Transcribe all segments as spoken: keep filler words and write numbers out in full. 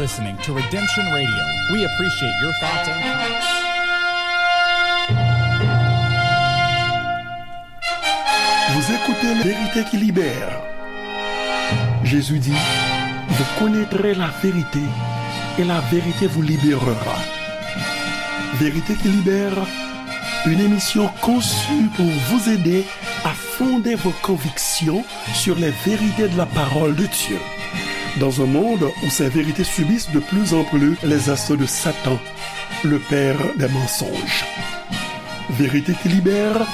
Listening to Redemption Radio. We appreciate your thoughts and comments. Vous écoutez La Vérité qui libère. Jésus dit, vous connaîtrez la vérité et la vérité vous libérera. Vérité qui libère, une émission conçue pour vous aider à fonder vos convictions sur les vérités de la parole de Dieu. Dans un monde où ces vérités subissent de plus en plus les assauts de Satan, le père des mensonges. Vérité qui libère,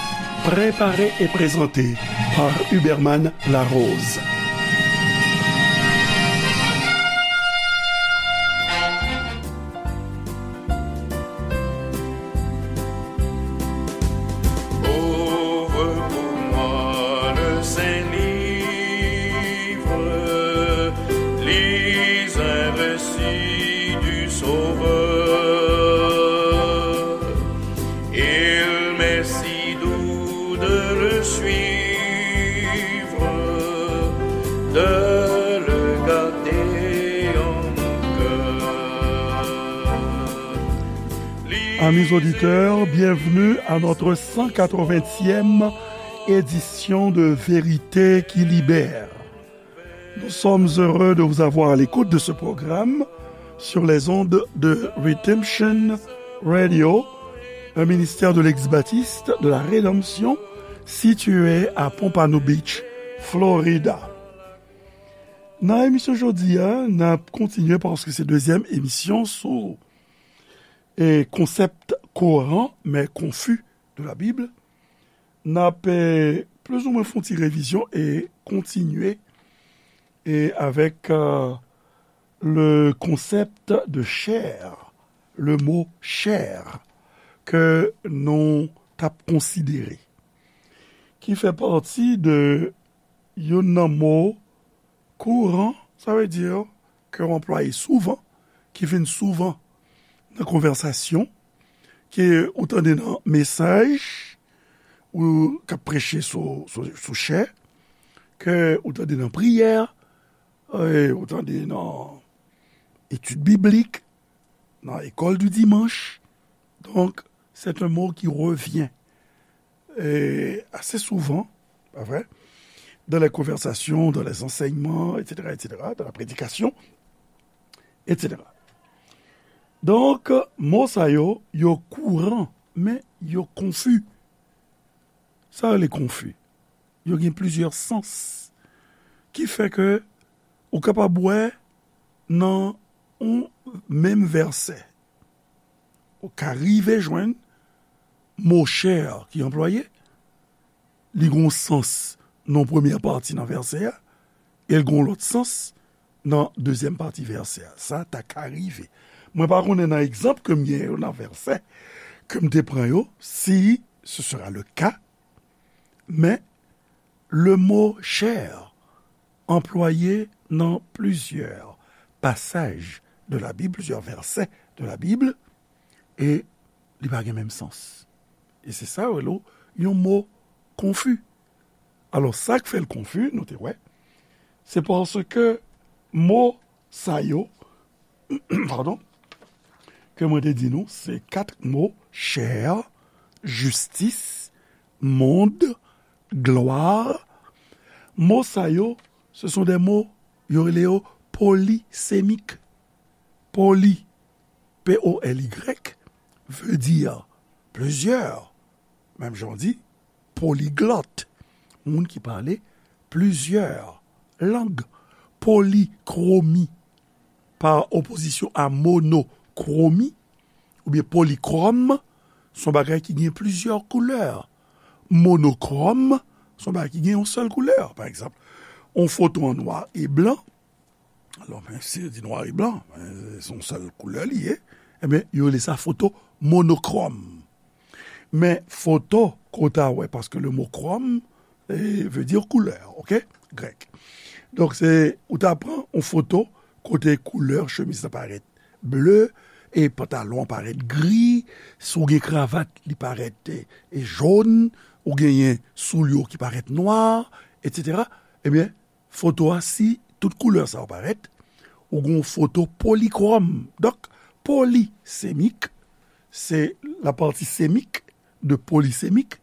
préparée et présentée par Huberman Larose. Ouvre pour moi le Saint Livre, lis un récit du Sauveur. Il m'est si doux de le suivre, de le garder en mon cœur. Amis auditeurs, bienvenue à notre cent quatre-vingtième édition de Vérité qui libère. Nous sommes heureux de vous avoir à l'écoute de ce programme sur les ondes de Redemption Radio, un ministère de l'ex-baptiste de la Rédemption situé à Pompano Beach, Florida. Nan emisyon jodi a, n ap kontinye paske se dezyèm emisyon sou e konsèp koran, men konfi de la Bib. N ap, eh, plizoumwen fè yon ti revizyon e kontinye e avèk, eh, le concept de chair, le mot chair, ke nou t ap konsidere, ki fè pati de youn nan mo kouran, sa vle di ke w anplwaye souvan, ki vin souvan nan konvèsasyon, ke ou tande nan mesaj, ou k ap preche sou, sou, sou chè, ke ou tande nan priyè, e ou tande nan etid biblik, nan école du dimanche. Donc, c'est un mot qui revient, euh, assez souvent, pas vrai, dans les conversations, dans les enseignements, et cetera, et cetera, dans la prédication, et cetera. Donk, mo sa yo, yo kouran, men yo konfi. Sa rele konfi. Yo gen plizyè sans. Ki fè ke ou kapab wè nan yon menm vèsè, ou ka rive jwenn mo chair ki anplwaye, li gen yon sans nan premyè pati nan vèsè a, e l gen yon lòt sans nan dezyèm pati vèsè a. Sa ta ka rive. Mwen pa konnen nan egzanp ke m gen yo nan vèsè ke m te pran yo, si ce sera le cas, men le mot chair anplwaye nan plizyè pasaj de la Bib, plizyè vèsè de la Bib, e li pa gen menm sans. E se sa yo rele yon mo konfi. Alò, sa k fè l konfi, nou te wè, se paske mo sa yo, padon, ke mwen te di nou, se kat mo, chair, justice, monde, gloire. Mo sa yo, ce sont des mots, yo rele yo polisémiques. Poly, P O L Y, veut dire plusieurs. Menm jan w di, polyglotte, moun ki pale plizyè lang. Polychromie, par opposition à monochromie, oubyen polychrome, se yon bagay ki gen plizyè koulè. Monochrome, se yon bagay ki gen yon sèl koulè. Pa egzanp, yon foto an nwa e blan, alò, men, si yo di nwa e blan, men, se yon sèl koulè li ye, ebyen, yo rele sa foto monokrom. Men foto, ke w ta wè, paske le mo krom, eh, veut dire couleur, ok? Grèk. Donk, se, ou ta pran yon foto kote koulè chemiz la parèt ble, e pantalon an parèt gri, si w gen kravat, li parèt, e, e jòn, ou genyen soulye w ki parèt nwa, etsetera. Ebyen, foto a, si tout koulè sa yo parèt, ou gen yon foto polikwòm. Donk, polisemik, se la pati semik de polisemik,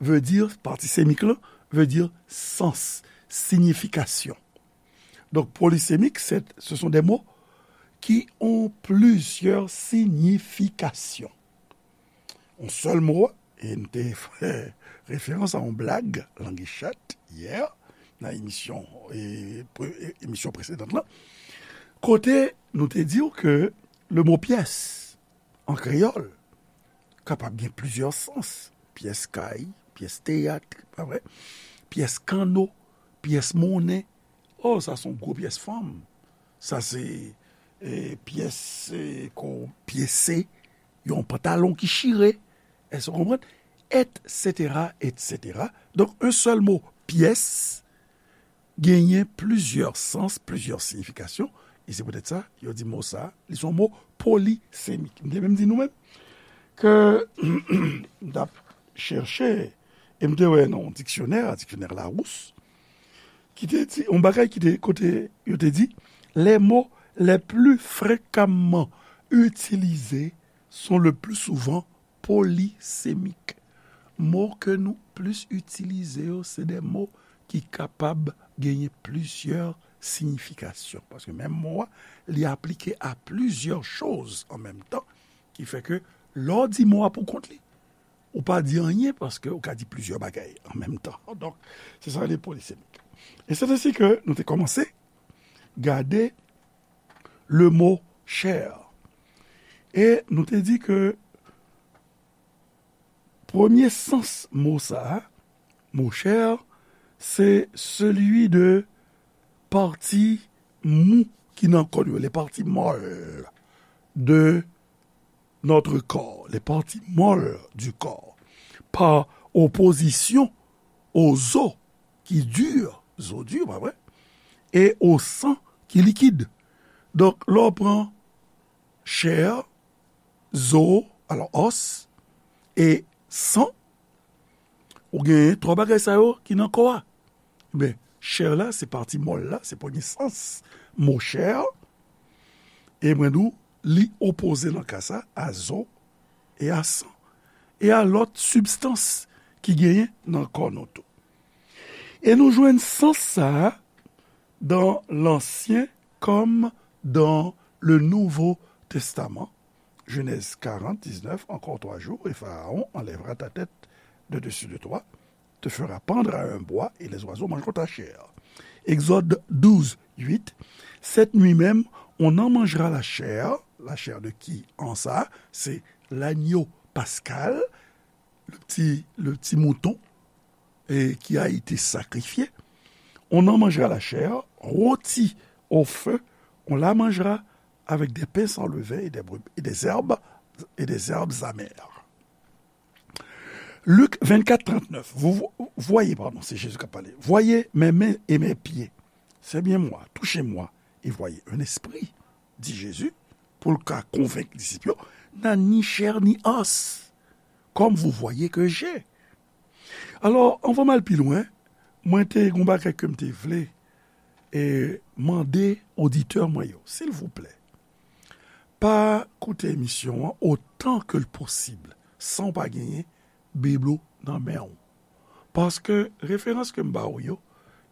vle di, pati semik lan, vle di sans, siyifikasyon. Donk, polisemik, se, ce sont des mots qui ont plusieurs significations. Yon sèl mo, e n te fè referans a yon blag, Langi Chat, yè, nan emisyon, e, pre-, e, emisyon presedan lan, kote nou te di w ke le mo pyès, an kreyòl, kapab gen plizyè sans. Pyès kay, pyès teyat, pa vre? Pyès kanno, pyès monnen. O, sa se yon gwo pyès fanm. Sa se, e, pyès, e, ko pyese, yon pantalon ki chire. Èske w konprann? Etsetera, etsetera. Donk, yon sèl mo, pyès, genyen plizyè sans, plizyè siyifikasyon, e se poutèt sa, yo di mo sa, li se yon mo polisemik. M te menm di nou menm ke m t ap chèche, e m te wè nan yon diksyonè, diksyonè Larousse, ki te di, yon bagay ki te, kote yo te di, les mots les plus fréquemment utilisés sont le plus souvent polysémiques. Mo ke nou plis itilize yo, se de mo ki kapab genyen plizyè siyifikasyon. Paske menm mo a, li aplike a plizyè choz an menm tan, ki fè ke lè w di mo a pou kont li, ou pa di anyen paske ou ka di plizyè bagay an menm tan. Donk, se sa le polisemik. E se ensi ke nou te kòmanse gade le mo chè. E nou te di ke premye sans mo sa a, mo chè, se celui de partie mou ki nan kò nou, les parties molles de notre corps, les parties molles du corps, par opposition aux os ki di, zo di, pa vre, e au sang ki likid. Donk, lè w pran chè, zo, alò, os, e san, ou genyen twa bagay sa yo ki nan kò a. Men, chè la, se pati mòl la, se premye sans mo chè. E mwen di w, li opoze nan ka sa a zo e a san, e a lòt sibstans ki genyen nan kò nou tou. E nou jwenn sans sa a dans l'Ancien comme dans le Nouveau Testament. Genèse quarante, dix-neuf, encore trois jours, et Pharaon enlèvera ta tête de dessus de toi, te fera pendre à un bois, et les oiseaux mangeront ta chair. Exode douze, huit, cette nuit même, on en mangera la chair. La chair de qui? An sa, se l'agneau pascal, le petit, le petit mouton, et qui a été sacrifié. On en mangera la chair, rôtie au feu, on la mangera avec des pains sans levain et des, et des herbes, et des herbes amères. Luc vingt-quatre, trente-neuf. Vous vo-, voyez, pardon, c'est Jésus qui a parlé. Voyez mes mains et mes pieds. C'est bien moi, touchez-moi et voyez. Un esprit, dit Jésus, pou l ka konvenk disip yo, nan ni chè ni os, comme vous voyez que j'ai. Alò, anvan m al pi lwen, mwen te gen yon bagay ke m te vle e mande oditè mwen yo, silvouplè, pa koute emisyon an otan ke l posib san w pa genyen Bib ou nan men w. Paske referans ke m ba ou yo,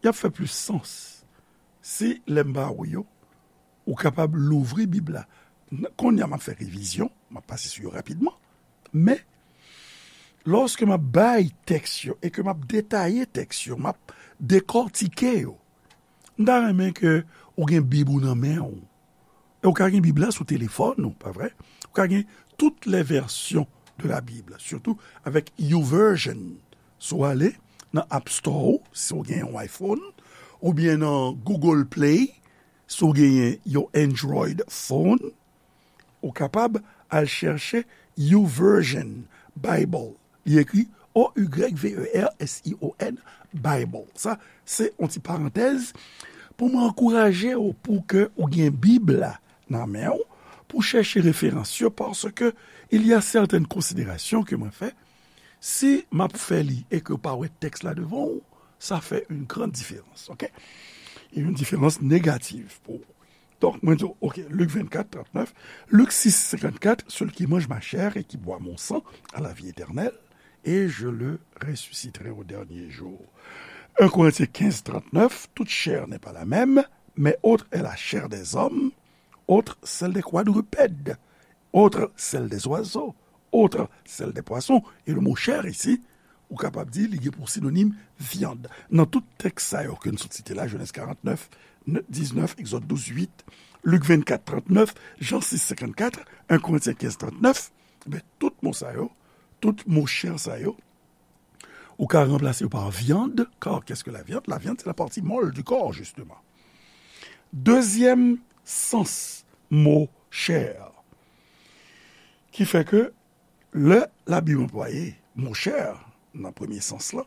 y ap fè plis sans si lè m ba ou yo, ou kapab louvri Bib la. N-, kounye a m ap fè revizyon, m ap pase sou yo rapidman. Men, lòske m ap bay tèks yo e ke m ap detaye tèks yo, m ap dekòtike yo, m ta renmen ke ou gen Bib ou nan men w. E ou ka gen Bib la sou telefòn ou, pa vre? Ou ka gen toutes les versions de la Bible, surtout avec YouVersion. Si w ale nan App Store ou, si w gen yon iPhone, oubyen nan Google Play, si w genyen yon Android phone, ou kapab al chèche YouVersion Bible. Li ekri O Y V E R S I O N, Bible. Sa, se yon ti parantèz pou mwen ankouraje w pou ke ou gen Bib la nan men w, pou chèche referans yo, paske il y a certaines considérations ke mwen fè, si m ap fè li e ke w pa wè tèks la devan w, sa fè une grande différence, ok? E yon diferans negatif pou ou. Donk, mwen di w, ok, Lik vennkat, trannèf, Lik sis, senkannkat, celui qui mange ma chair et qui boit mon sang a la vie éternelle, et je le ressusciterai au dernier jour. Un Corinthiens quinze, trannèf, toute chair n'est pas la même, mais autre est la chair des hommes, autre celle des quadrupèdes, autre celle des oiseaux, autre celle des poissons. E le mo chair isi, ou kapab di li gen pou sinonim vyann. Nan tout tèks sa yo ke n sot site la, Jenèz karannèf, diznèf, Egzòd douz, uit, Lik vennkat, trannèf, Jan sis, senkannkat, un Corinthiens quinze, trannèf, ben, tout mo sa yo, tout mo chair sa yo, ou ka ranplase yo pa viande, car qu'est-ce que la viande? La viande, c'est la partie molle du corps, justement. Dezyèm sans mo chair, ki fè ke lè Labib anplwaye mo chair nan premye sans lan,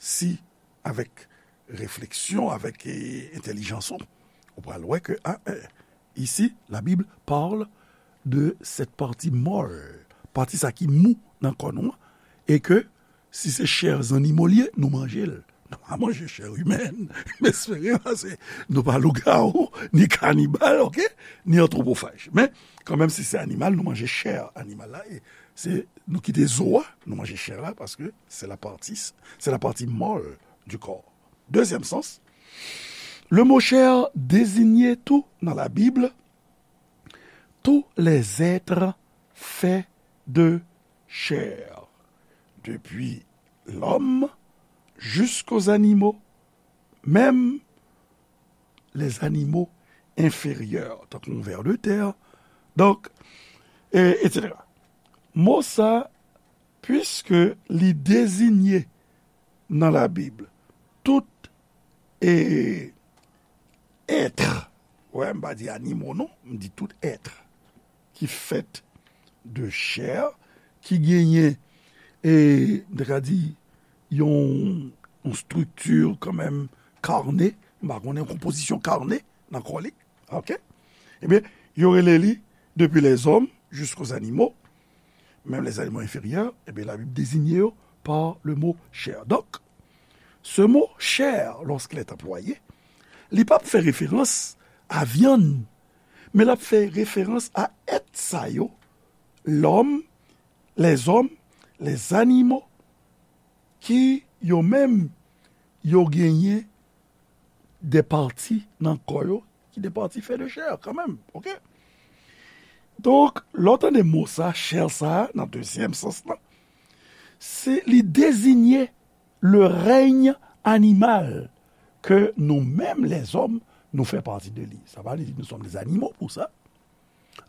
si avèk refleksyon, avèk, e, entèlijans ou, ou pral wè ke, a, e, ici, la Bible parle de cette partie molle, pati sa ki mou nan kò nou an, e ke si se chè zannimo l ye, nou manje l. Nou pa manje chè imèn. M espere, paske nou pa lougawou, ni kanibal, ok? Ni antwopofaj. Men, kanmenm, si se animal, nou manje chè animal la. E se, nou kite zo a, nou manje chè la, paske se la partie, c'est la partie molle du corps. Deuxième sens, le mot chair désignait tout dans la Bible, tous les êtres faits de chair, depuis l'homme jusqu'aux animaux, même les animaux inférieurs, tankou yon ver de tè, donk, e, et cetera. Mo sa, puiske li deziye nan Labib tout, e, èt, wè, m pa di animo non, m di tout èt ki fèt de chè, ki genyen, e, m te ka di, yon, yon estrikti kanmenm karne, m pa konnen, yon konpozisyon karne nan kò li, ok? Ebyen, yo rele li, depuis les hommes jusqu'aux animaux, même les animaux inférieurs, ebyen, Labib deziye yo par le mot chair. Donc, ce mot chair, lorsqu'il est employé, li p ap fè referans a vyann, men l ap fè referans a èt sa yo, l'homme, les hommes, les animaux, ki yo menm, yo genyen de pati nan kò yo, ki de pati fè de chè, kanmenm, ok? Donk, lè w tande mo sa, chair sa, nan dezyèm sans lan, se li deziye le règne animal ke nou menm, les hommes, nou fè pati de li. Sa pa vle di nous sommes des animaux pour ça.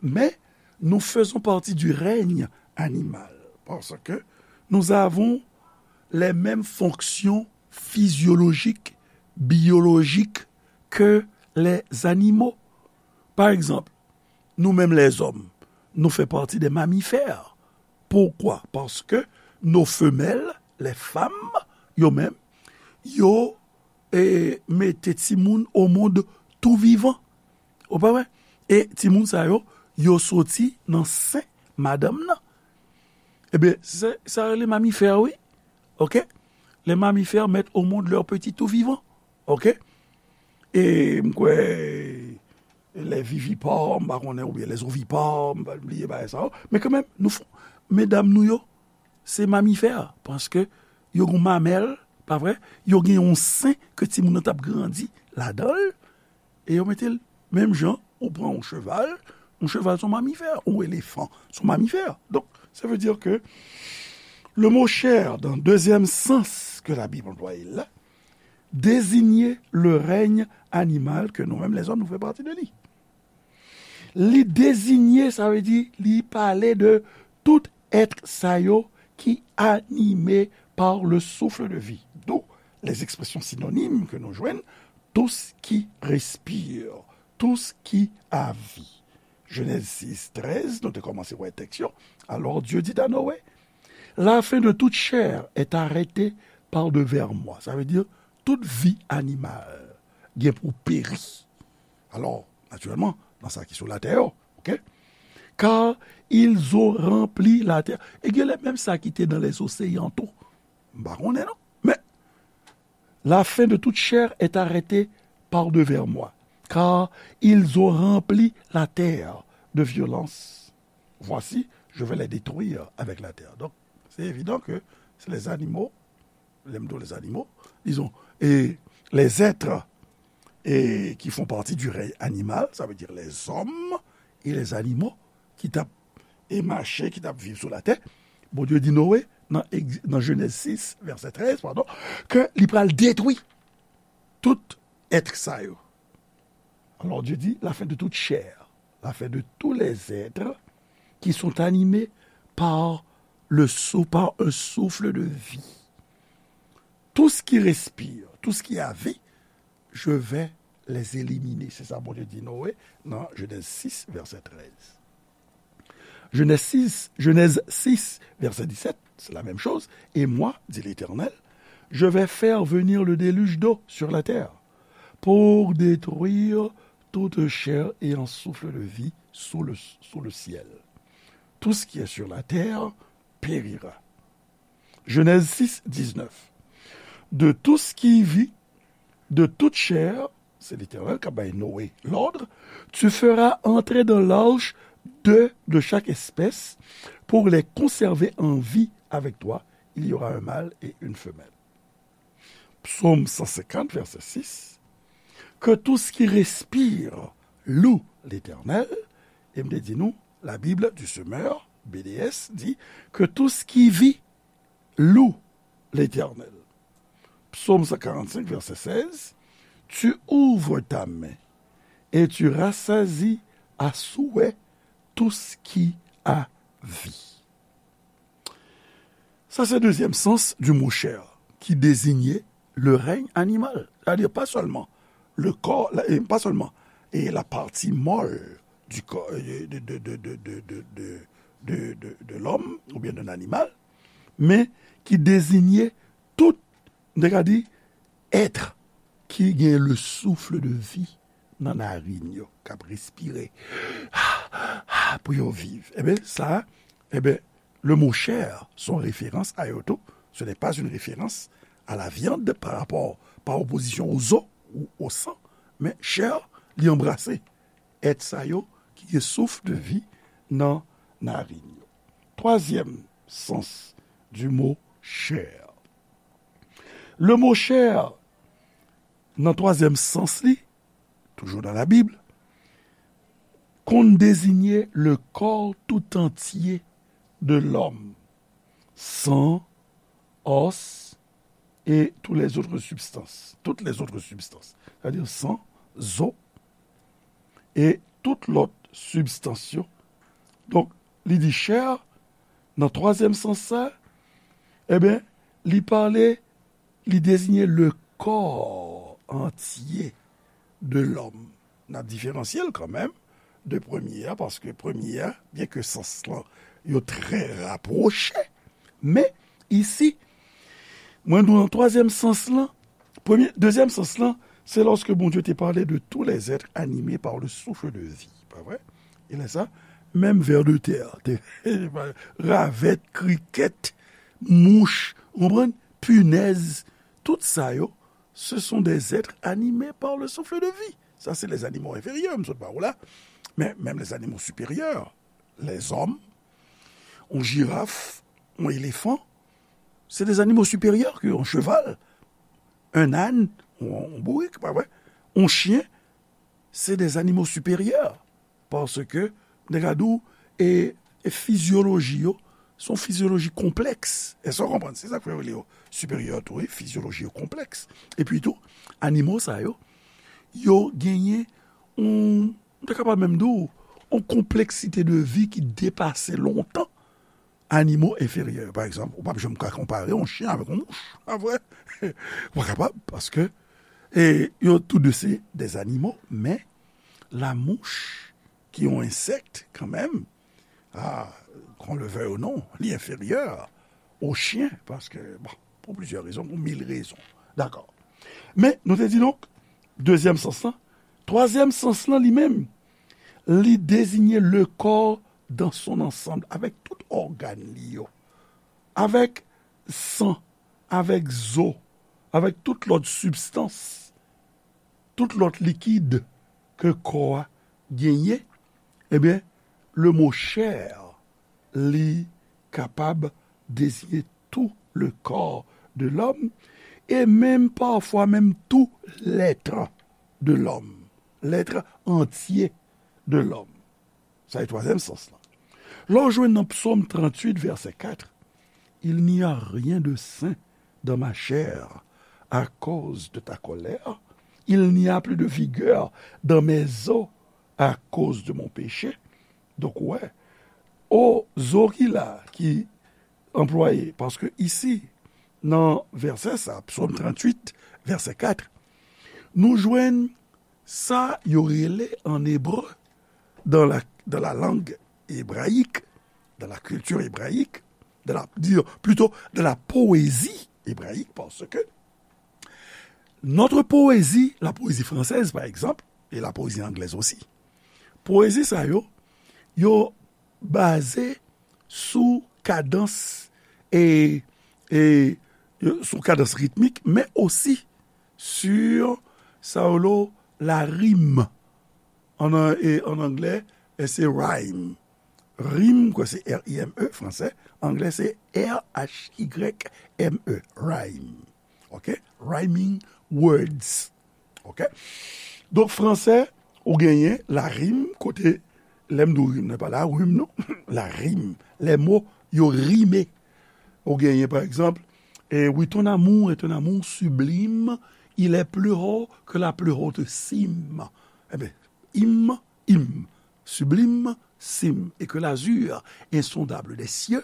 Mais nous faisons partie du règne animal, parce que nous avons les mêmes fonctions physiologiques, biologiques que les animaux. Par exemple, nous-mêmes les hommes, nous faisons partie des mammifères. Pourquoi? Parce que nos femelles, les femmes, yo menm, yo, e, mete timoun au monde tout vivant. Ou pa wè? E timoun sa yo, yo soti nan sen madanm nan. Ebyen, se, sa rele mamifè, wi. Ok? Les mammifères mettent au monde leurs petits tout vivants. Ok? E m kwè, les vivipares, m pa konnen, oubyen les ovipares, m pa bliye bagay sa yo. Men kanmenm, nou fon, medam nou yo, se mamifè, paske yo gen mamèl, pa vre? Yo gen yon sen ke timoun nan t ap grandi ladan l, e yo mete l menm jan ou pran yon cheval, yon cheval se yon mamifè, yon elefan se yon mamifè. Donk, sa vle di ke le mot chair, dans le deuxième sens que la Bible emploie là, désigne le règne animal que nous-mêmes les hommes, nous faisons partie de lui. Li deziye, sa vle di, li pale de tout èt sa yo ki anime par le souffle de vie. D'où les expressions synonymes que nou jwenn, tout ce qui respire, tout ce qui a vie. Jenèz sis, trèz, nou te kòmanse wè tèks yo. Alors Dieu dit à Noé, la fin de toute chair est arrêtée par devers moi. Sa vle di, tout vi animal gen pou peri. Alò, natirèlman, nan sa ki sou latè yo, ok? Car ils ont rempli la terre. E gen lè menm sa ki te nan les océans tou. M pa konnen non. Men, la fin de toute chair est arrêtée par devers moi. car ils ont rempli la terre de violence. Voici, je vais les détruire avec la terre. Donc, c'est évident que c'est les animaux, les, les animaux, disons, et les êtres et qui font partie du règne animal, ça veut dire les hommes et les animaux qui tapent et marché, qui tapent vivre sur la terre. Bondye di Noé, dans, dans Genèse six, verset treize, pardon, que li pral détruit tout être sa yo. Alors Dieu dit, la fin de toute chair, la fin de tous les êtres qui sont animés par le sou-, par un souffle de vie. Tout ce qui respire, tout ce qui a vie, je vais les éliminer. C'est ça Bondye di Noé dans Genèse six, verset treize. Genèse six, Genèse six, verset dix-sept, c'est la même chose. Et moi, dit l'Éternel, je vais faire venir le déluge d'eau sur la terre pour détruire toute chair ayant souffle de vie sous le, sous le ciel. Tout ce qui est sur la terre périra. Genèse six, dix-neuf. De tout ce qui vit, de toute chair, c'est l'Éternel qui a donné Noé l'ordre, tu feras entrer dans l'arche deux de chaque espèce pour les conserver en vie avec toi. Il y aura un mâle et une femelle. Psaume cent cinquante, verset six. Que tout ce qui respire loue l'Éternel. Et me dit nous, la Bible du semeur, B D S, dit que tout ce qui vit loue l'Éternel. Psaume cent quarante-cinq, verset seize. Tu ouvres ta main et tu rassasies à souhait tout ce qui a vie. Sa se dezyèm sans du mot chair, ki deziye le règne animal. Sètadi pa sèlman le kò, pa sèlman e la pati mòl du corps, de, de, de, de, de, de, de, de, de, de l'homme oubyen d'un animal, men ki deziye tout, nou te ka di, être ki gen le souffle de vie nan narin yo, k ap respire pou yo viv. Ebyen, sa, ebyen, le mot chair, son référence à yo tou. Ce n'est pas une référence à la viande par rapport, par opposition aux os ou au sang, men chair, li anbrase èt sa yo ki gen souf de vi nan narin yo. Twazyèm sans du mot chair. Le mot chair, nan twazyèm sans li, toujou nan Labib, konn deziye le corps tout entier de l'homme, sang, os, et toutes les autres substances. Toutes les autres substances. Sètadi san, zo, e tout lòt sibstans yo. Donk, li di chair, nan twazyèm sans sa, ebyen, li pale, li deziye le corps entier de l'homme. N ap diferansye l kanmenm de premye a, paske premye a, byenke sans lan, yo trè rapwoche, men isi, mwen di w nan twazyèm sans lan, premye, dezyèm sans lan, se lòske Bondye te pale de tous les êtres animés par le souffle de vie, pa vre? E lè sa, menm vers de terre, te, ravèt, krikèt, mouch, ou konprann? Pinèz, tout sa yo, ce sont des êtres animés par le souffle de vie. Sa se les animaux inférieurs, m sot ba ou la. Men menm les animaux supérieurs, les hommes, yon jiraf, yon elefan, se des animaux supérieurs que yon cheval, un âne, yon, yon bourik, pa vre? Yon chyen, se des animaux supérieurs. Paske, nèg la di w, e, e fizyoloji yo, se yon fizyoloji konplèks. Èske w konprann? Se sa k fè yo rele yo siperyè tou, wi, fizyoloji yo konplèks. Epi tou, animo sa yo, yo genyen yon, m ta kapab menm di w, yon konpleksite de vi ki depase lontan animo enferyè. Pa egzanp, ou p ap janm ka konpare yon chen avèk yon mouch, pa vre? Ou pa kapab, paske, e, yo tou de se des animaux, men la mouch, ki yon ensèk kanmenm, a, qu'on le veuille ou non, li enferyè o chen, paske, bon, pou plizyè rezon, pou mil rezon. Dakò. Men, nou te di donk, dezyèm sans lan, twazyèm sans lan li menm, li deziye le corps dans son ensemble, avèk tout ògàn li yo, avèk san, avèk zo, avèk tout lòt sibstans, tout lòt likid, ke kò a genyen, ebyen, le mo chair, li kapab deziye tout le corps de l'homme, e menm pafwa menm tout l'être de l'homme, l'être entier de l'homme. Sa se twazyèm sans lan. Lè w jwenn nan Psaume trente-huit, verset quatre, il n'y a rien de sain dans ma chair à cause de ta colère, il n'y a plus de vigueur dans mes os à cause de mon péché. Donk, ou wè, o zo ki la, ki anplwaye, paske isi, nan vèsè sa, Psaume trente-huit, verset quatre, nou jwenn sa yo rele en hébreu, dans la, dans la langue hébraïque, dans la culture hébraïque, dans la, dire, plutôt dans la poésie hébraïque, parce que notre poésie, la poésie française, par exemple, et la poésie anglaise aussi, poésie sa yo, yo baze sou kadans e, e, sou kadans ritmik, men osi sur sa yo rele la rime. An, e, an anglè, e se rhyme. Rime, kwa, se R I M E, fransè. Anglè, se R H Y M E, rhyme. Ok? Rhyming words. Ok? Donk, fransè, ou genyen la rime, kote, lè m di w rime, nan pa la rime, non. La rime. Les mots, yo rime. Ou genyen, pa egzanp, eh, oui, ton amour est un amour sublime, il est plus haut que la plus haute cime. Eben, im, im, sublime, cime, et que l'azur insondable des cieux,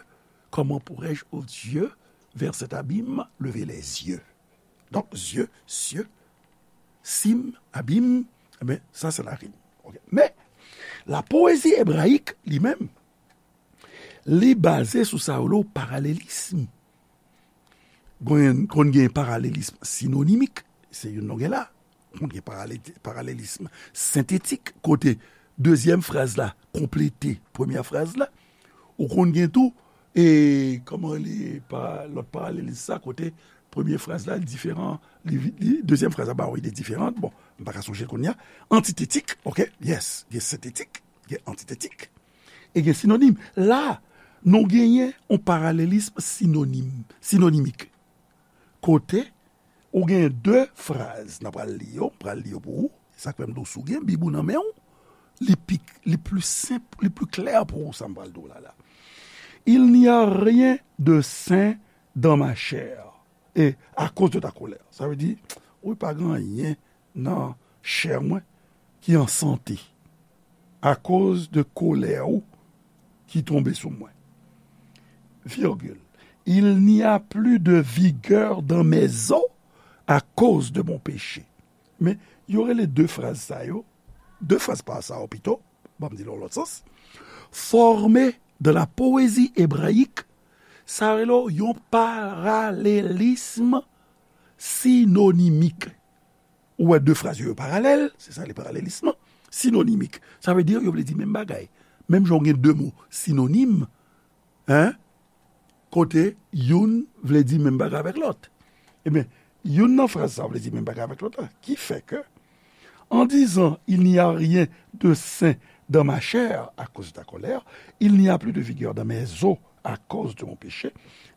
comment pourrais-je, ô Dieu, vers cet abîme, lever les yeux? Donk, zye, sye, sim, abim, eben, sa se la rime. Ok. Men, la poésie hébraïque, li menm, li baze sou sa yo rele paralelism. Konn, konn gen paralelism sinonimik, se youn nou gen la. Konn gen parale-, paralelism sentetik, kote dezyèm fraz la konplete premyè fraz la. Ou konn gen tou, e, kòman rele pa, lòt paralelism sa, kote premye fraz la, li diferan, li, li, dezyèm fraz la ba yon ide diferan. Bon, m pa ka sonje l kounye a. Antitetik, ok, yes, gen sentetik, gen antitetik, e gen sinonim. La, nou genyen yon paralelism sinonim, sinonimik. Kote, ou gen de fraz, n a pral li yo, m pral li yo pou ou. Sa k fè m di w, si w gen Bib ou nan men w, li pi, li pli senp, li pli klè pou ou, sa m pral di w la, la. Il n'y a rien de sain dans ma chair, et à cause de ta colère. Sa vle di, wi, pa gen anyen nan chè mwen ki an sante, akoz de kolè ou ki tonbe sou mwen. Virgule. Il n'y a plus de vigueur dans mes os à cause de mon péché. Men, yo rele de fraz sa yo, de fraz pa sa yo pito, ban m di l yon lòt sans, formé de la poésie hébraïque, sa rele yon paralelism sinonimik. Ou wè de fraz yo, yo paralèl, se sa le paralelism, sinonimik. Sa vle di, yo vle di menm bagay. Menm jan w gen de mo sinonim, en, kote youn vle di menm bagay avèk lòt. Ebyen, youn nan fraz sa vle di menm bagay avèk lòt la. Ki fè ke, en disant, il n'y a rien de sain dans ma chair à cause de ta colère, il n'y a plus de vigueur dans mes os à cause de mon péché,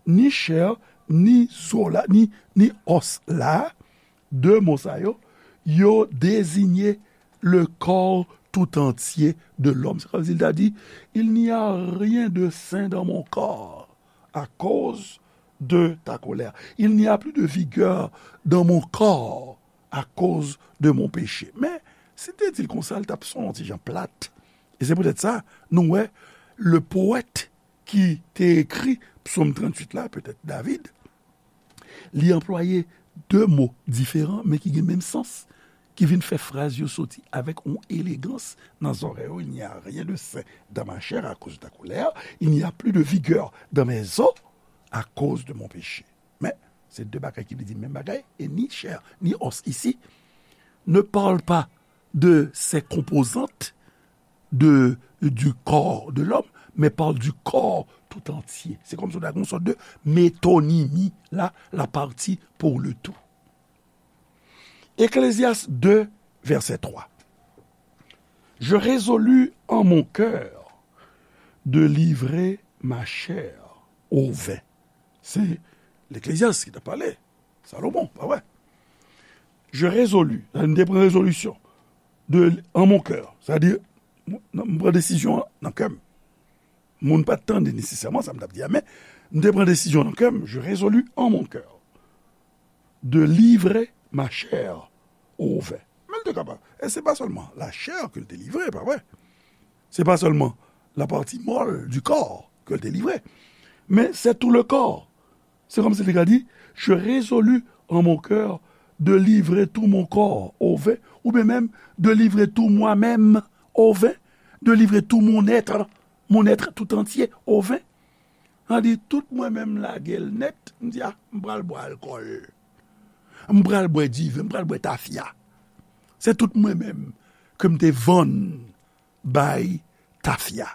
ni chè, ni zo la, ni, ni os la, de mo sa yo, yo deziye le corps tout entier de l'homme. Sa vle di, il n'y a rien de sain dans mon corps à cause de ta colère. Il n'y a plus de vigueur dans mon corps à cause de mon péché. Men, si te di l konsa, l t ap son yon ti jan plat. E se poutèt sa, nou wè, le poète ki te ekri Psaume tranntuit la, petèt David, li anplwaye de mo diferan, men ki gen menm sans, ki vin fè fraz yo soti avèk yon elegans nan zòrèy yo. Il n'y a rien de sain dans ma chair à cause de ta colère, il n'y a plus de vigueur dans mes os à cause de mon péché. Men, se de bagay ki vle di menm bagay, e ni chè, ni os isi ne parle pas de ses composantes, de, du corps de l'homme, mais parle du corps tout entier. Se kòmsi w ta gen yon sòt de metonimi la, la partie pour le tout. Ecclésiaste deux, verset trois. Je résolus en mon cœur de livrer ma chair au vin. Se Leklezyas ki t ap pale, Salomon, pa vre? Je résolus, sa m te pran rezolisyon, de, en mon cœur, sa di, m pran desizyon an nan kè m. Moun pa t tande nesesèman sa m t ap di a, men m te pran desizyon nan kè m, je résolus en mon cœur de livrer ma chair au vin. Men l te kapab. E se pa sèlman la chè ke l te livre, pa vre? Se pa sèlman la pati mòl du corps ke l te livre, men c'est tout le corps. Se kòmsi li ka di, je résolus en mon cœur de livrer tout mon corps au vin, oubyen menm de livrer tout moi-même au vin, de livrer tout mon être, mon être tout entier au vin. Sa di, tout mwen menm lage l nèt, m di, a, m pral bwè alkòl. M pral bwè diven, m pral bwè tafya. Se tout mwen menm ke m te vann bay tafya.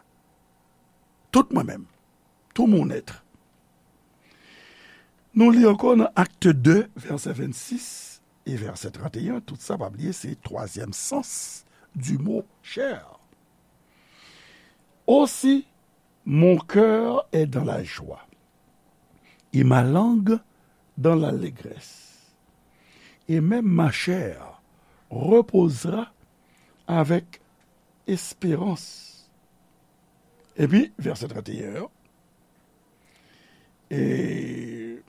Tout mwen menm. Tout mon être. Nou li ankò nan Acte deux, vèsè vennsis e vèsè trannteyen. Tout sa, pa bliye, se twazyèm sans du mot chair. Aussi, mon cœur est dans la joie, et ma langue dans l'allégresse, et même ma chair reposera avec espérance. Epi, vèsè trannteyen an, e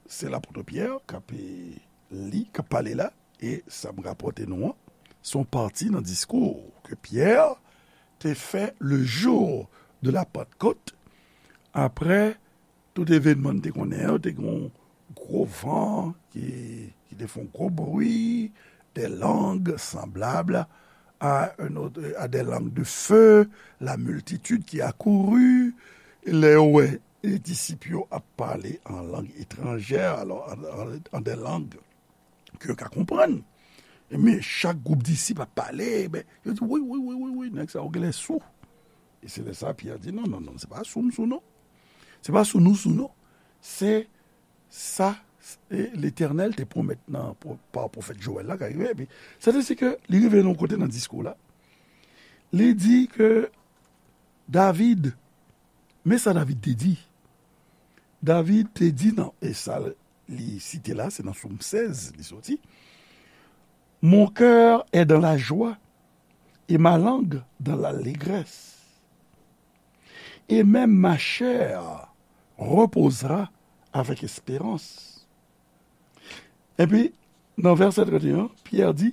se lapot Pyè k ap li, k ap pale la, e sa m rapòte nou an, se yon pati nan diskou ke Pyè te fè le jour de la Pentecôte, apre tout evènman n te konnen yo, te gen yon gwo van ki, ki te fè yon gwo bri, des langues semblables à un autre, à des langues de feu, la multitude qui accourut, lè yo wè e disip yo ap pale an lang etranjè, alò, an, an, an de lang ke yo ka konprann. Men chak gwoup disip ap pale, ben, yo di, wi, wi, wi, wi, wi, nèg sa yo genlè sou. E se lè sa Pyè di, non, non, non, se pa sou m sou, non. Se pa sou nou sou, non. Se sa e Letènèl te pwomèt nan, pa pwofèt Jowèl la, ka rive. Epi, se te si ke li rive nan yon kote nan diskou la, li di ke David, men sa David te di. David te di nan, e sa li site la, se nan Sòm sèz li soti. Mon cœur est dans la joie, et ma langue dans l'allégresse. Et même ma chair reposera avec espérance. Epi, nan vèsè trannteyen, Pyè di,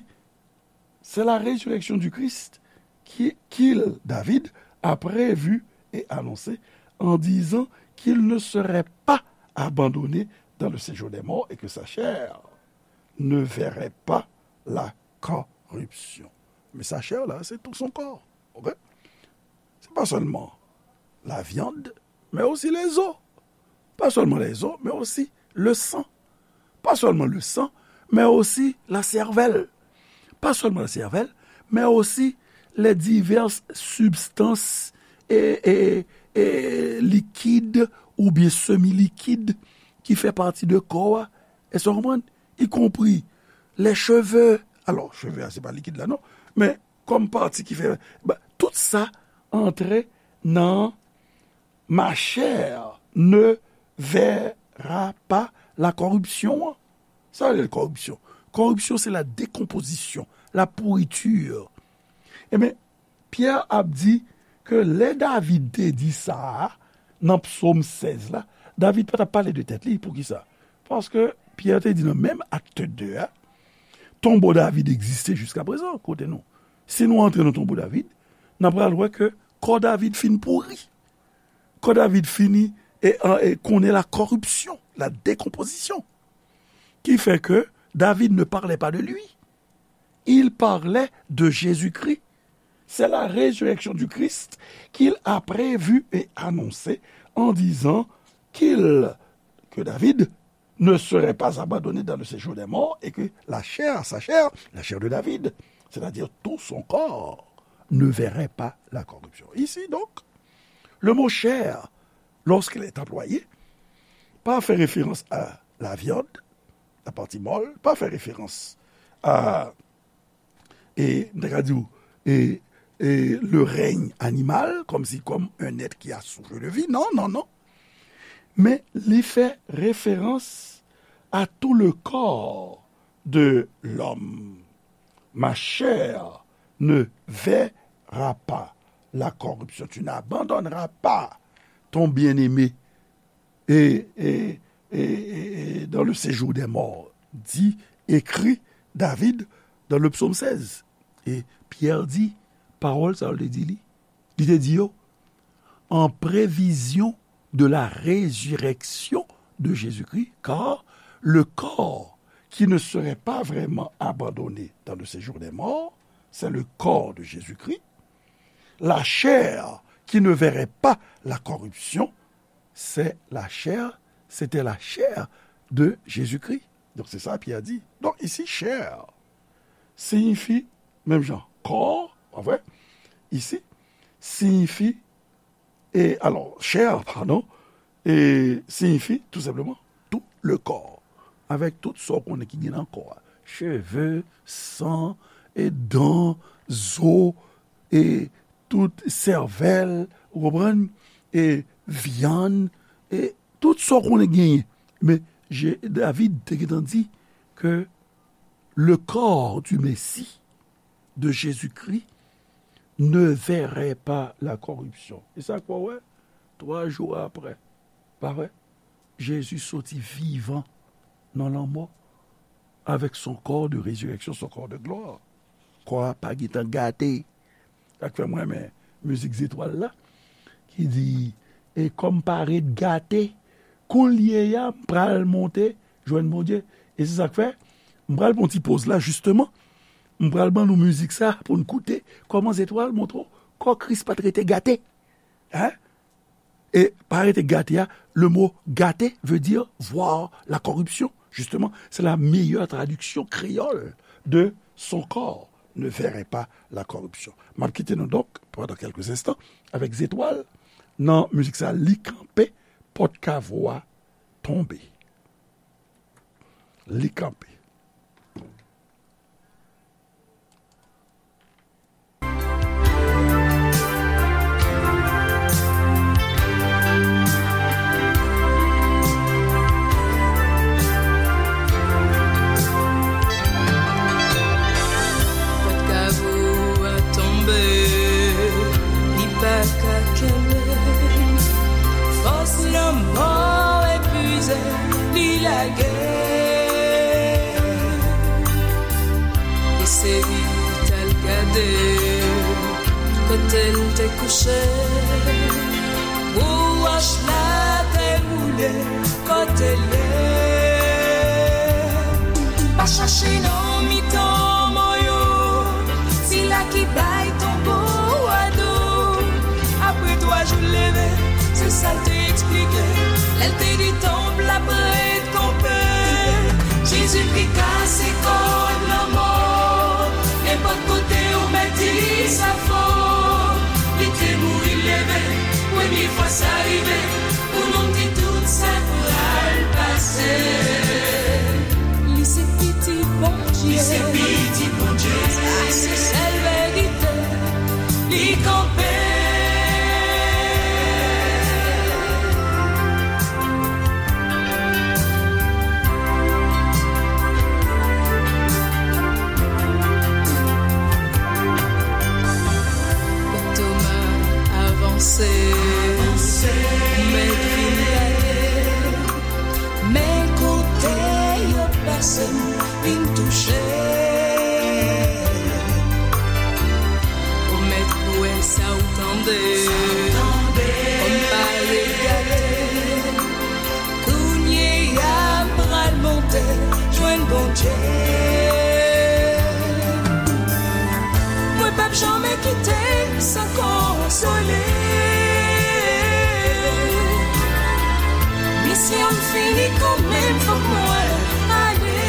c'est la résurrection du Christ qui, qu'il, David, a prévu et annoncé en disant qu'il ne serait pas abandonné dans le séjour des morts et que sa chair ne verrait pas la corruption. Men sa chè la, se tout son corps. Ok? Se pa sèlman la viande, men osi les os. Pa sèlman les os, men osi le sang. Pa sèlman le sang, men osi la cervelle. Pa sèlman la cervelle, men osi les diverses substances e, e, e likid oubyen semi likid ki fè pati de kò a. Èske w konprann? Y compris les cheveux. Alò, cheve a, se pa likid la, non. Men, kòm pati ki fè, ba, tout sa antre nan ma chair ne verra pas la corruption. Sa vle di koripsyon. Koripsyon, se la décomposition, la pourriture. Ebyen, Pyè ap di ke lè David te di sa a, nan Psòm sèz la, David pa t ap pale de tèt li. Poukisa? Paske Pyè te di nan menm Acte deux a, tonbo David egziste jiska prezan, kote nou. Si nou antre nan tonbo David, n ap pral wè ke kò David fin pouri. Kò David fini e, e, e konnen la corruption, la décomposition. Qui fait que David ne parlait pas de lui. Il parlait de Jésus-Christ. C'est la résurrection du Christ qu'il a prévu et annoncé en disant qu'il, que David ne serait pas abandonné dans le séjour des morts et que la chair, sa chair, la chair de David, c'est-à-dire tout son corps, ne verrait pas la corruption. Ici, donc, le mot chair, lorsqu'il est employé, pa fè référence à la viande, la partie molle, pa fè référence à, e, m ta ka di w, e, e le règne animal, comme si comme un être qui a souffle de vie. Non, non, non. Men li fè referans à tout le corps de l'homme. Ma chair ne verra pas la corruption. Tu n'abandonneras pas ton bien-aimé. Et, et, et, et, et dans le séjour des morts, dit, écrit David dans le psaume seize. E Pyè di, pawòl sa yo te di li. Li te di yo, en prévision de la résurrection de Jésus-Christ, car le corps qui ne serait pas vraiment abandonné dans le séjour des morts, c'est le corps de Jésus-Christ. La chair qui ne verrait pas la corruption, c'est la chair, c'était la chair de Jésus-Christ. Donk, se sa Pyè di. Donk, isi, chair siyifi, menm jan, kò, pa vre? Isi, siyifi, e, alò, chair, padon, e siyifi, tou senpleman, tout le corps. Avèk tout sa w konnen ki gen nan kò a. Cheve, san, e dan, zo, e tout sèvèl, ou konprann? E vyann, e tout sa w konnen genyen. Men, Je-, David te gentan di ke le corps du Messie, de Jésus-Christ, ne verrait pas la corruption. E sa k wè, twa jou apre, pa vre? Jezi soti vivan nan lanmò avèk son corps de résurrection, son corps de gloire. Kò a pa gentan gate. Sa k fè mwen renmen mizik Zetwal la, ki di, e kò m parèt gate, kounye a m pral monte jwenn Bondye. E se sa k fè, m pral pran yon ti poz la, jisteman. M pral ban nou mizik sa pou n koute kòman Zetwal montre w kò Kris pa t rete gate. Hein? E pa rete gate a, le mot gate veut dire voir la corruption. Justement, c'est la meilleure traduction créole de son corps ne verrait pas la corruption. M ap kite nou donk, pandan kèlke enstan, avèk Zetwal, nan mizik sa, Li kanpe, pòt kavo a tonbe. Li kanpe. Pòt kavo a tonbe, li pa ka kenbe. Fòs lanmò epuize, li lage. Eseye t al gade kote l te kouche. Pou wòch la te boule kote l ye. Pa chache nan mitan mò yo, sila ki bay tonbo a do. Apre twa jou l leve, se sa l te eksplike lè l te di tanp la prèt kanpe. Jezikri kase kòd lanmò. Nenpòt kote ou mèt di sa fò. Li te mouri, l leve, premye fwa sa rive. Pou nou di tout sa pral pase. Li se pitit Bondye. Li se pitit Bondye. Sa se sèl verite. Li kanpe. Toma avanse, mèt vin gade. Men kote yo pase m vin touche. O mèt, wè sa w tande, kòm pale gade. Kounye a m pral monte jwenn Bondye. Mwen p ap janmen kite san konsole. Misyon m fini kanmenm, fòk mwen ale.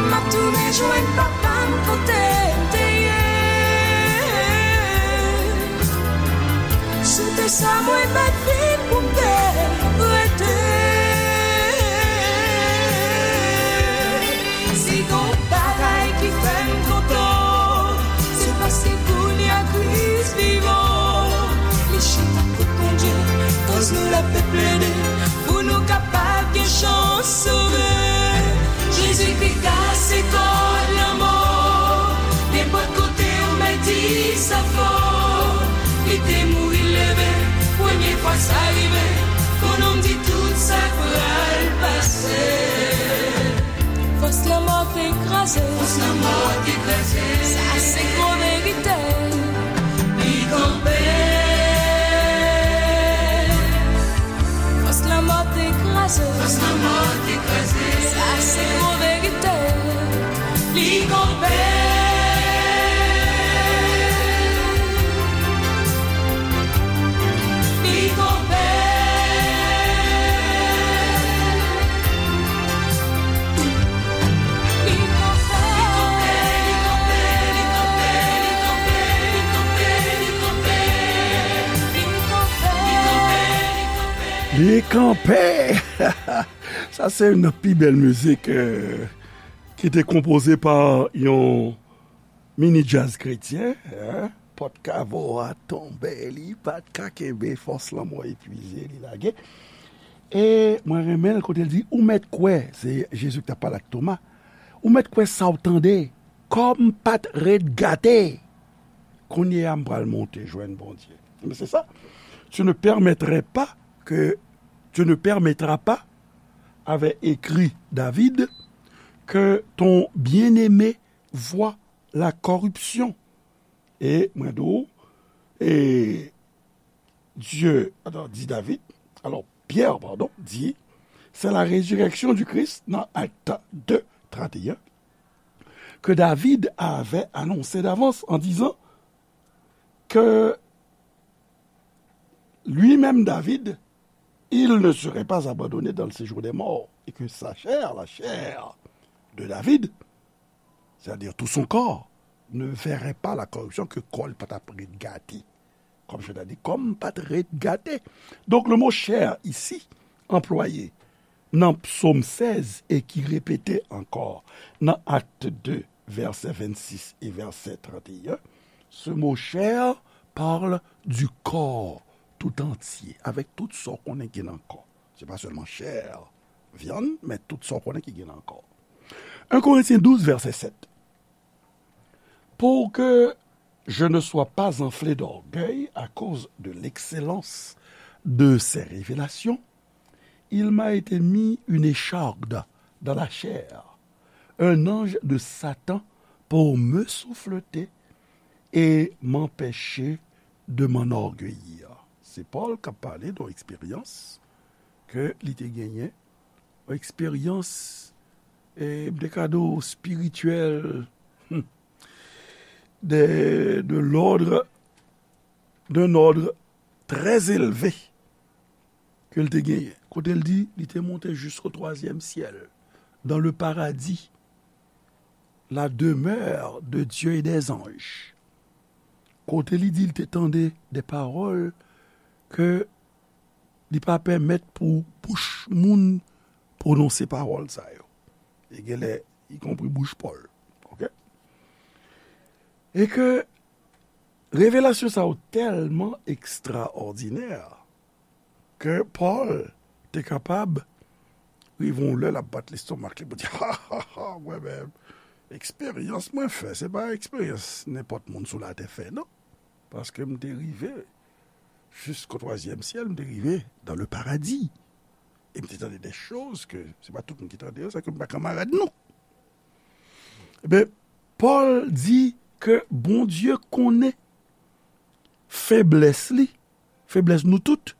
M ap tounen jwenn papa m kote l te ye. Si w te sa mwen pa t vin pou m te rete. Si gon bagay ki fè L ap plede pou nou kapab gen chans sove. Jezikri kase kòd lanmò. Nenpòt kote ou mèt di sa fò. Li te mouri, leve, premye fwa sa rive. Pou nou m di tout sa k pral pase. Fòs lanmò te kraze. Fòs lanmò te kraze. Sa se gwo verite. Li kanpe. Fòs lanmò te kraze. Fòs lanmò te kraze. Sa se gwo verite. Li kanpe. Li kanpe. Li kanpe! Sa se youn nan pi bèl mizik, euh, ki te konpoze pa yon mini djaz kretyen, hein? Pòt kavo a tonbe, li pa t ka kenbe, fòs lanmò epwize, li lage. E mwen renmen l kote l di, ou mèt kwè, se Jezi ki t ap pale ak Toma, ou mèt kwè sa w tande, kò m pa t ret gate. Kounye a, m pral monte jwenn Bondye. Men se sa. Tu ne permettrais pas que, tu ne permettras pas, avait écrit David, que ton bien-aimé voie la corruption. E mwen di w, e Dieu, alors, dit David, alors Pierre, pardon, dit, c'est la résurrection du Christ, dans Actes deux, trente et un, que David avait annoncé d'avance en disant que lui-même, David, il ne serait pas abandonné dans le séjour des morts, et que sa chair, la chair de David, c'est-à-dire tout son corps, ne verrait pas la corruption, ke kò l pa t ap ret gate. Comme je l'ai dit, kò m pa t ret gate. Donc, le mot chair ici, employé dans Psaume seize et qui répété encore dans Actes deux, verset vingt-six et verset trente et un, ce mot chair parle du corps tout entier, avec tout sa w konnen ki nan kò. Se pa sèlman chè, vyann, men tout sa w konnen ki gen nan kò. Un Corinthiens douze, verset sept. Pour que je ne sois pas enflé d'orgueil à cause de l'excellence de ces révélations, il m'a été mis une écharde dans la chair, un ange de Satan pour me souffleter et m'empêcher de m'enorgueillir. Se Pòl k ap pale de yon eksperyans ke li te genyen, yon eksperyans, e, m te ka di w espirityèl, hmm, de, de l'ordre, d'un ordre très élevé ke l te genyen. Kote l di, li te monte jusqu'au troisième ciel, dans le paradis, la demeure de Dieu et des anges. Kote li di, li te tande de pawòl ke li pa pèmèt pou bouch moun pwononse pawòl sa yo. E genlè, ikonpri bouch Pòl. Oke? E ke revelasyon sa yo tèlman ekstraòdinè ke Pòl te kapab rive yon lè l ap bat lestomak li pou di, ha, ha, ha, mwen menm, eksperyans mwen fè, se pa eksperyans nenpòt moun sou latè fè, non. Paske m te rive jusqu'au troisième ciel, m te rive dans le paradis. E m te tande de choz ke se pa tout moun ki tande yo, sa ke m pa kanmarad nou. Eben, Pòl di ke Bondye konnen feblès li, feblès nou tout,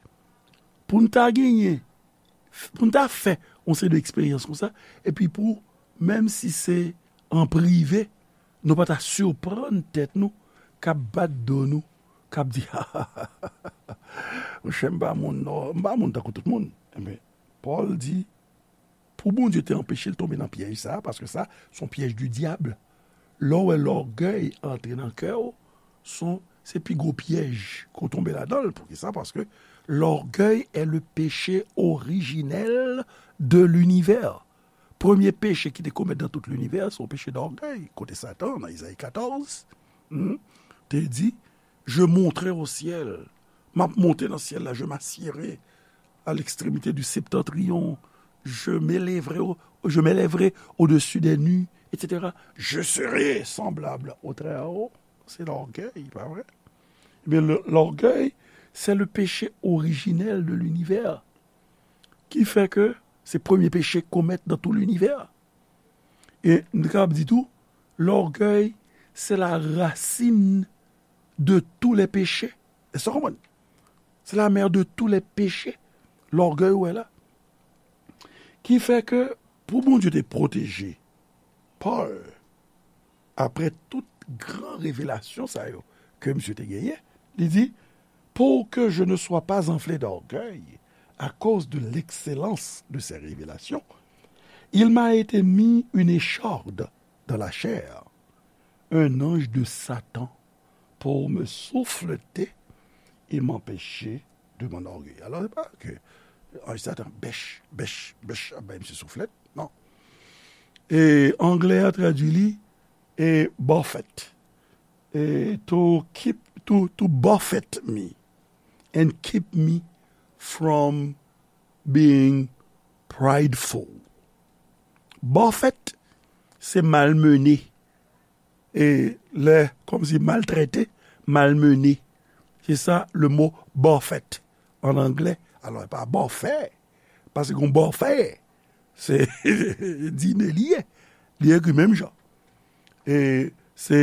pou n ta genyen, pou n ta fè yon seri de eksperyans konsa, epi pou, menm si se an prive, nou pa ta siprann tèt nou, k ap bat do nou, k ap di, ha, ha, ha, ha, monchè, m pa moun, non, m pa moun tankou tout moun. Enben, Pòl di, pou Bondye te anpeche l tonbe nan pyèj sa a, paske sa, se yon pyèj di dyab. Lè w wè lògèy antre nan kè w, se yon, se pi gwo pyèj ke w tonbe ladan l. Poukisa? Paske l'orgueil est le péché originel de l'univers. Premye peche ki te komèt dans tout l'univers, se yon peche d'orgueil. Kote Satan, nan Izayi katòz, hmm, te di, je monterai au ciel. M ap monte nan syèl la, je m'assiérai à l'extrémité du septentrion, je m'élèverai au, je m'élèverai au-dessus des nues, et cetera. Je serai semblable au Très-Haut. C'est l'orgueil, pas vrai? Eh bien, le- l'orgueil, c'est le péché originel de l'univers, qui fait que c'est le premier péché commettre dans tout l'univers. E nou kapab di tou, l'orgueil, c'est la racine de tous les péchés. Èske w konprann? C'est la mère de tous les péchés. L'orgueil, ou wè la. Ki fè ke pou Bondye te pwoteje Pòl, apre tout gran revelasyon sa yo ke misye te genyen, li di, pour que je ne sois pas enflé d'orgueil à cause de l'excellence de ces révélations, il m'a été mis une écharde dans la chair, un ange de Satan pour me souffleter et m'empêcher de m'enorgueillir. Alò, se pa ke anj Satan bèch, bèch, bèch, ap bay misye souflèt, non. E anglè a tradui li e buffet. E to keep, to, to buffet me and keep me from being prideful. Buffet, se malmennen. E lè, kòmsi maltrete, malmennen. Se sa le mo buffet an anglè. Alò, e pa bòfè. Paske yon bòfè, se dine li ye. Li ekri menm jan. E se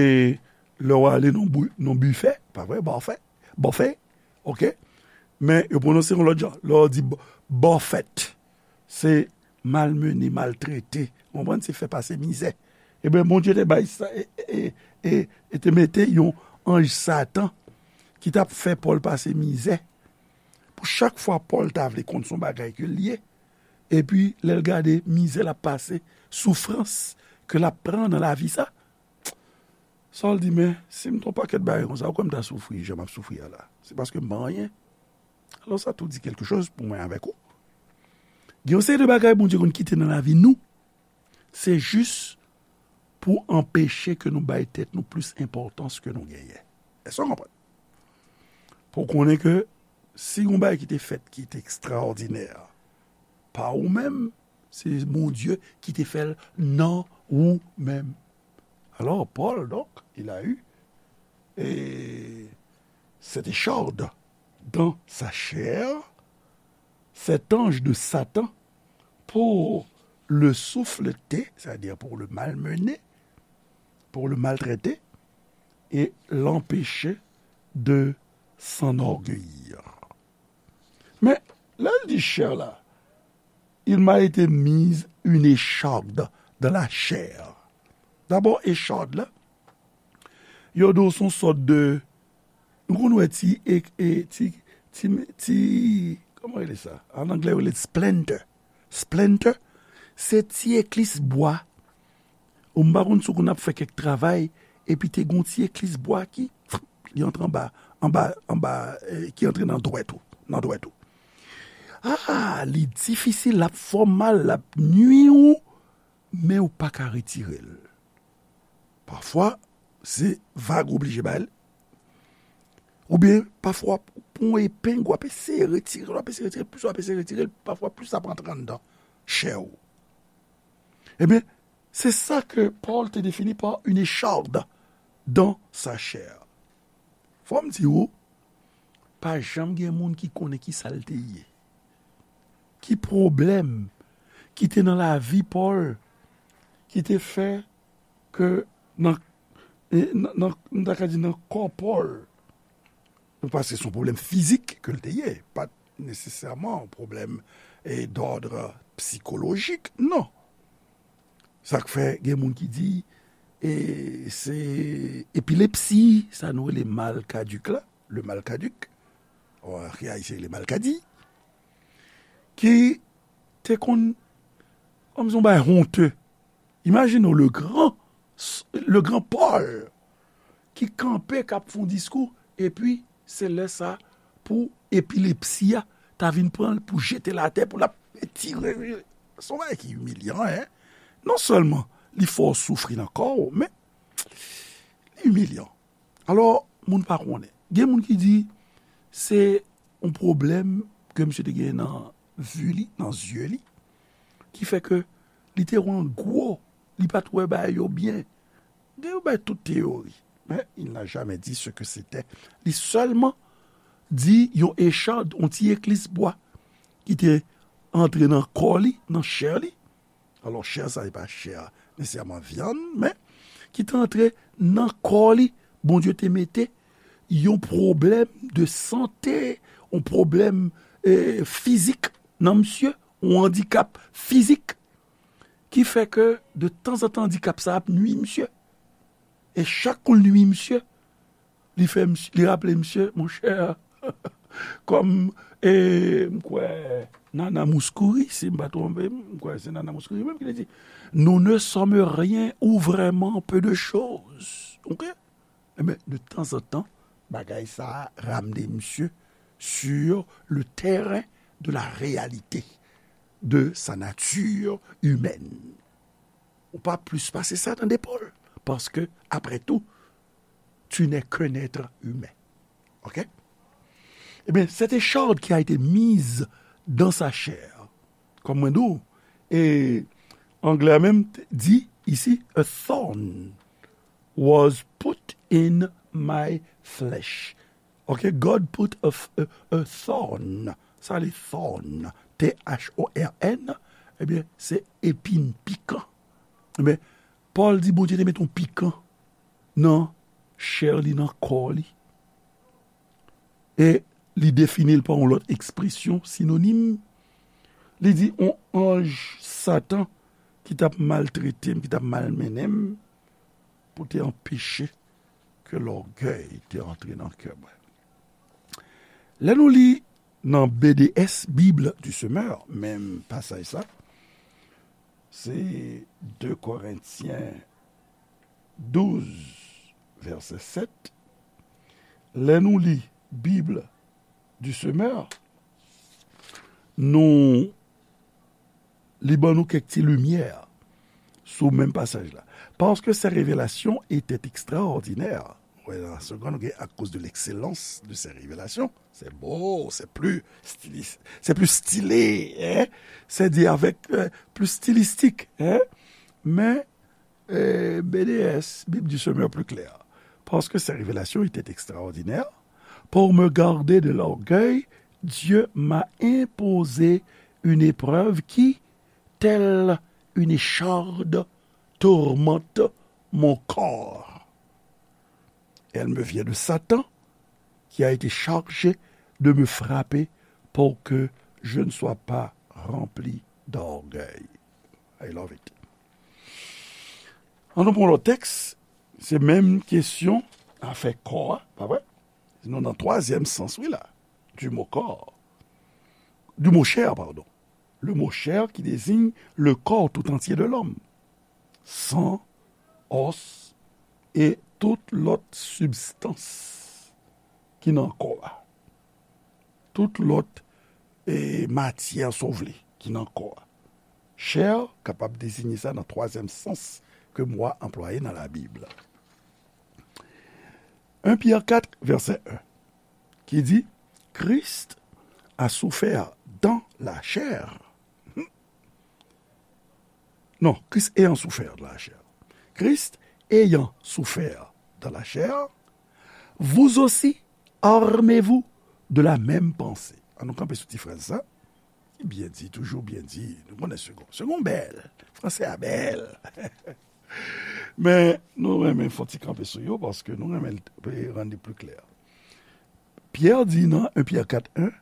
lè w ale nan bou- nan bifè, pa vre, bòfè, bòfè, oke? Men yo pwononse yon lòt jan. Lè w di b- bòfèt, se malmennen, maltrete. Ou konprann? Se fè pase mizè. Ebyen, Bondye te bay sa, e, e, e, e te mete yon anj Satan ki t ap fè Pòl pase mizè. Pou chak fwa Pòl ta vle konn se yon bagay ke l ye, epi lè l gade mizè l ap pase, soufrans ke l ap pran nan lavi sa, sa l di, men, si m t yon pakèt bagay konsa, ou kwè m ta soufri jan m ap soufri a la? Se paske m pa anyen. Alò, sa tou di quelque chose pou mwen avèk ou. Gen yon seri de bagay Bondye konn kite nan lavi nou, se jis pou anpeche ke nou bay tèt nou plis enpòtans ke nou genyen. Èske w konprann? Pou w konnen ke si yon bagay ki te fèt ki te ekstraòdinè pa ou menm, se Bondye ki te fè l nan ou menm. Alors, Paul, donc, il a eu et cette écharde dans sa chair, cet ange de Satan, pour le souffleter, c'est-à-dire pour le malmener, pour le maltraiter, et l'empêcher de s'enorgueillir. Men, lè l di chè la, il m'a été mise une écharde dans la chair. Dabò, écharde la, yo di w se yon sòt de, nou konn wè ti, e, e, ti, ti, ti, kòman rele sa? An anglè, yo rele splinter. Splinter, se ti eklis bwa. Ou m pa konn si w konn ap fè kèk travay, epi te gon ti eklis bwa ki, li antre anba, anba, anba, eh, ki antre nan dwèt ou, nan dwèt ou. Ah, li difisil, l ap fè w mal, l ap nui ou, men ou pa ka retire l. Pafwa, se vag ou oblije bay l. Oubyen, pafwa, pou yon epeng, w ap eseye retire l, w ap eseye retire l, plis w ap eseye retire l, pafwa, plis l ap antre anndan chè ou. Ebyen, se sa ke Pòl te defini pa une écharde dans sa chair. Fò m di w, pa janm gen moun ki konnen ki sa l te ye. Ki pwoblèm ki te nan lavi Pòl ki te fè ke nan, e, nan, nan, m ta ka di nan kò Pòl, paske se yon pwoblèm fizik ke l te ye, pa t nesesèman yon pwoblèm, e, d'ordre psychologique, non. Sa k fè gen moun ki di, e, se epilepsi, sa nou rele mal caduc la, le mal caduc, an kreyòl se le malkadi, ki te konn, kòm se yon bagay honte. Imajine w, le grand, le grand Paul, ki kanpe, k ap fè yon diskou, epi se lè sa pou epilepsi a ta vin pran l, pou jete l atè, pou l ap tire. Se yon bagay ki imilyan, en. Non sèlman li fè w soufri nan kò w, men li imilyan. Alò, moun pa konnen. Gen moun ki di se yon pwoblèm ke misye te genyen nan vi li, nan zye li, ki fè ke li te wè an gwo, li pa t wè bagay yo byen. Gen yo bay tout teyori, men il n'a jamais dit ce que c'était. Li sèlman di yon echad, yon ti eklis bwa ki te antre nan kò li, nan chè li. Alò, chè sa, se pa chè nesesèman vyann, men ki te antre nan kò li, Bondye te mete yon pwoblèm de sante, yon pwoblèm eh, fizik nan misye, yon andikap fizik, ki fè ke de tanzantan andikap sa ap nwi misye. E chak kou l nwi misye, li fè misye, li raple misye, monchè, kòm, e, m kwè, Nana Mouskouri, si m pa twonpe m, m kwè se Nana Mouskouri menm ki te di, nous ne sommes rien ou vraiment peu de choses. Ok? Ebyen, de tanzantan, bagay sa a ramne misye sur le terrain de la réalité de sa nature humaine. Ou pa plis pase sa, tande, Pòl. Paske, après tout, tu n'es qu'un être humain. Ok? Ebyen, cette écharde qui a été mise dans sa chair, kòm mwen di w, e anglè a menm di isi, a thorn was put in my flesh. Ok, God put a, a, a thorn. Sa li thorn, T H O R N, ebyen, se epin, pikan. Ebyen, Pòl di Bondye te met yon pikan nan chè li, nan kò li. E li defini l pa yon lòt ekspresyon sinonim. Li di yon anj Satan ki t ap maltrete m, ki t ap malmennen m, pou te anpeche ke lògèy te antre nan kè mwen. Lè nou li nan B D S, Bible du Semeur, menm pasaj sa, se de Korentyen douz, vèsè sèt. Lè nou li Bible du Semeur, nou li ban nou kèk ti limyè sou menm pasaj la. Parce que ces révélations étaient extraordinaires. Wè, nan segonn, ou gen à cause de l'excellence de ces révélations. C'est beau, c'est plus stylis-, c'est plus stylé, hein? C'est dit avec euh, plus stylistique, hein? Men eh, B D S, Bible du Semeur plus clair. Parce que ces révélations étaient extraordinaires, pour me garder de l'orgueil, Dieu m'a imposé une épreuve qui, telle une écharde, tourmente mon corps. Elle me vient de Satan, qui a été chargé de me frapper pour que je ne sois pas rempli d'orgueil. I love it. An nou pran lòt tèks, se menm kesyon afè kò a, pa vre? Nou nan twazyèm sans, wi la, du mot corps, du mot chair, pardon. Le mot chair qui désigne le corps tout entier de l'homme. San, os, e tout lòt sibstans ki nan kò a. Tout lòt e matyè, si w vle, ki nan kò a. Chè kapab deziye sa nan twazyèm sans ke mo a anplwaye nan Labib. En Pyè kat, vèsè en, ki di, Christ a souffert dans la chair. Non, Christ ayant souffert dans la chair. Christ ayant souffert dans la chair, vous aussi, armez-vous de la même pensée. An nou kanpe sou ti fraz sa. Byen di, toujou byen di. Nou konnen segon. Segon bèl. Franse a bèl. Men, nou renmen fè yon ti kanpe sou yo, paske nou renmen rann li pli klè. Pyè di nan en Pyè kat en,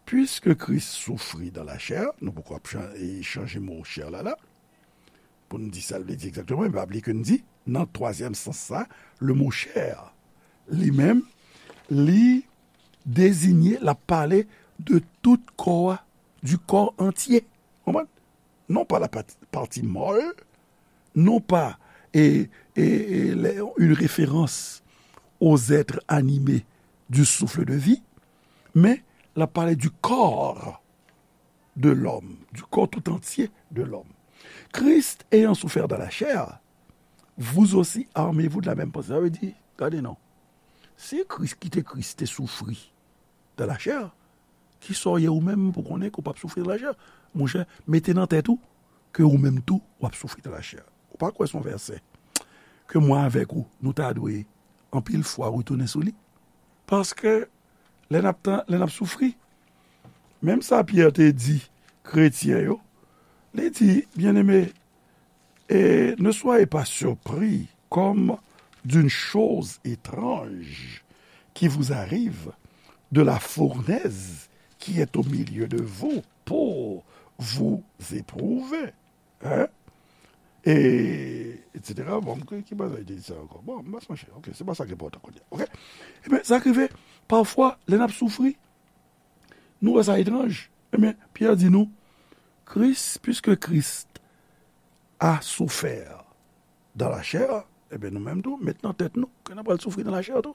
Puisque Christ souffrit dans la chair, nou poko ap chan-, e, chanje mo chair la la, pou n di sa l vle di egzakteman, men pa bliye ke n di, nan twazyèm sans sa, le mot chair, li menm, li deziye, l ap pale de tout kò a, du corps entier. Konprann? Non pas la pati, pati mòl, non pas e, e, e, une référence aux êtres animés du souffle de vie, men l ap pale du corps de l'homme, du corps tout entier de l'homme. Christ ayant souffert dans la chair, vous aussi armez-vous de la même pensée. Sa vle di, gade non. Si Kris, kite Kris te soufri dans la chair, Kisa w ye ou menm pou konnen ke w p ap soufri nan lachè? Monchè, mete nan tèt ou ke ou menm tou, w ap soufri nan lachè. Ou pa kwè se yon vèsè ke mwen avèk ou, nou ta dwe anpil fwa retounen sou li? Paske lè n ap tan, lè n ap soufri, menm sa Pyè te di kretyen yo, li di, Bien-aimés, et ne soyez pas surpris comme d'une chose étrange qui vous arrive de la fournaise qui est au milieu de vous pour vous éprouver. Hein? Et, et cetera. Bon, ki, ki bagay te di sa ankò? Bon, m pa sonje. Ok, se pa sa ki enpòtan kounye a. Ok? Ebyen, sa k rive, pafwa, lè n ap soufri, nou wè sa etranj. Ebyen, Pyè di nou, Christ, puisque Christ a souffert dans la chair, ebyen, nou menm tou, met nan tèt nou ke n ap pral soufri nan lachè tou.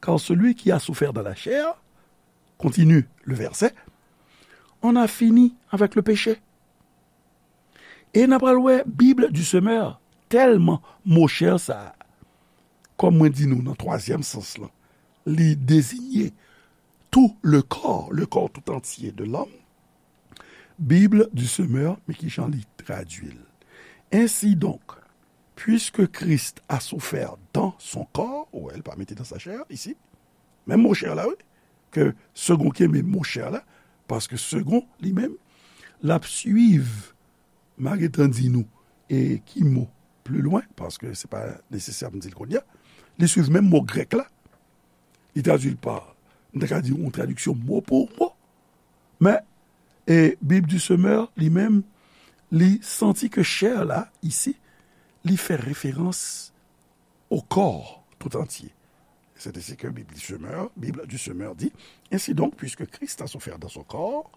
Car celui qui a souffert dans la chair, continue le verset, en a fini avec le péché. E n ap pral wè Bible du Semeur, tèlman mo chè sa a, kòm mwen di nou nan twazyèm sans lan, li dezinye tout le corps, le corps tout entier de l'homme. Bible du Semeur, men ki jan li tradui l. Ainsi donc, puisque Christ a souffert dans son corps, ou wè, l pa mete dans sa chair, isi, menm mo chè la, wi, ke Segond kenbe mo chè la, paske Segond, li menm, l ap swiv, m a gentan di nou, e ki mo pli lwen, paske se pa nesesè pou m di l kounye a, li swiv menm mo grèk la, li tradui l pa, m ta ka di yon tradiksyon mo pou mo, men, e Bible du Semeur, li menm, li santi ke chè la, isi, li fè referans au corps tout entier. C'est ainsi que Bible du Semeur, Bible du Semeur dit, Ainsi donc, puisque Christ a souffert dans son corps,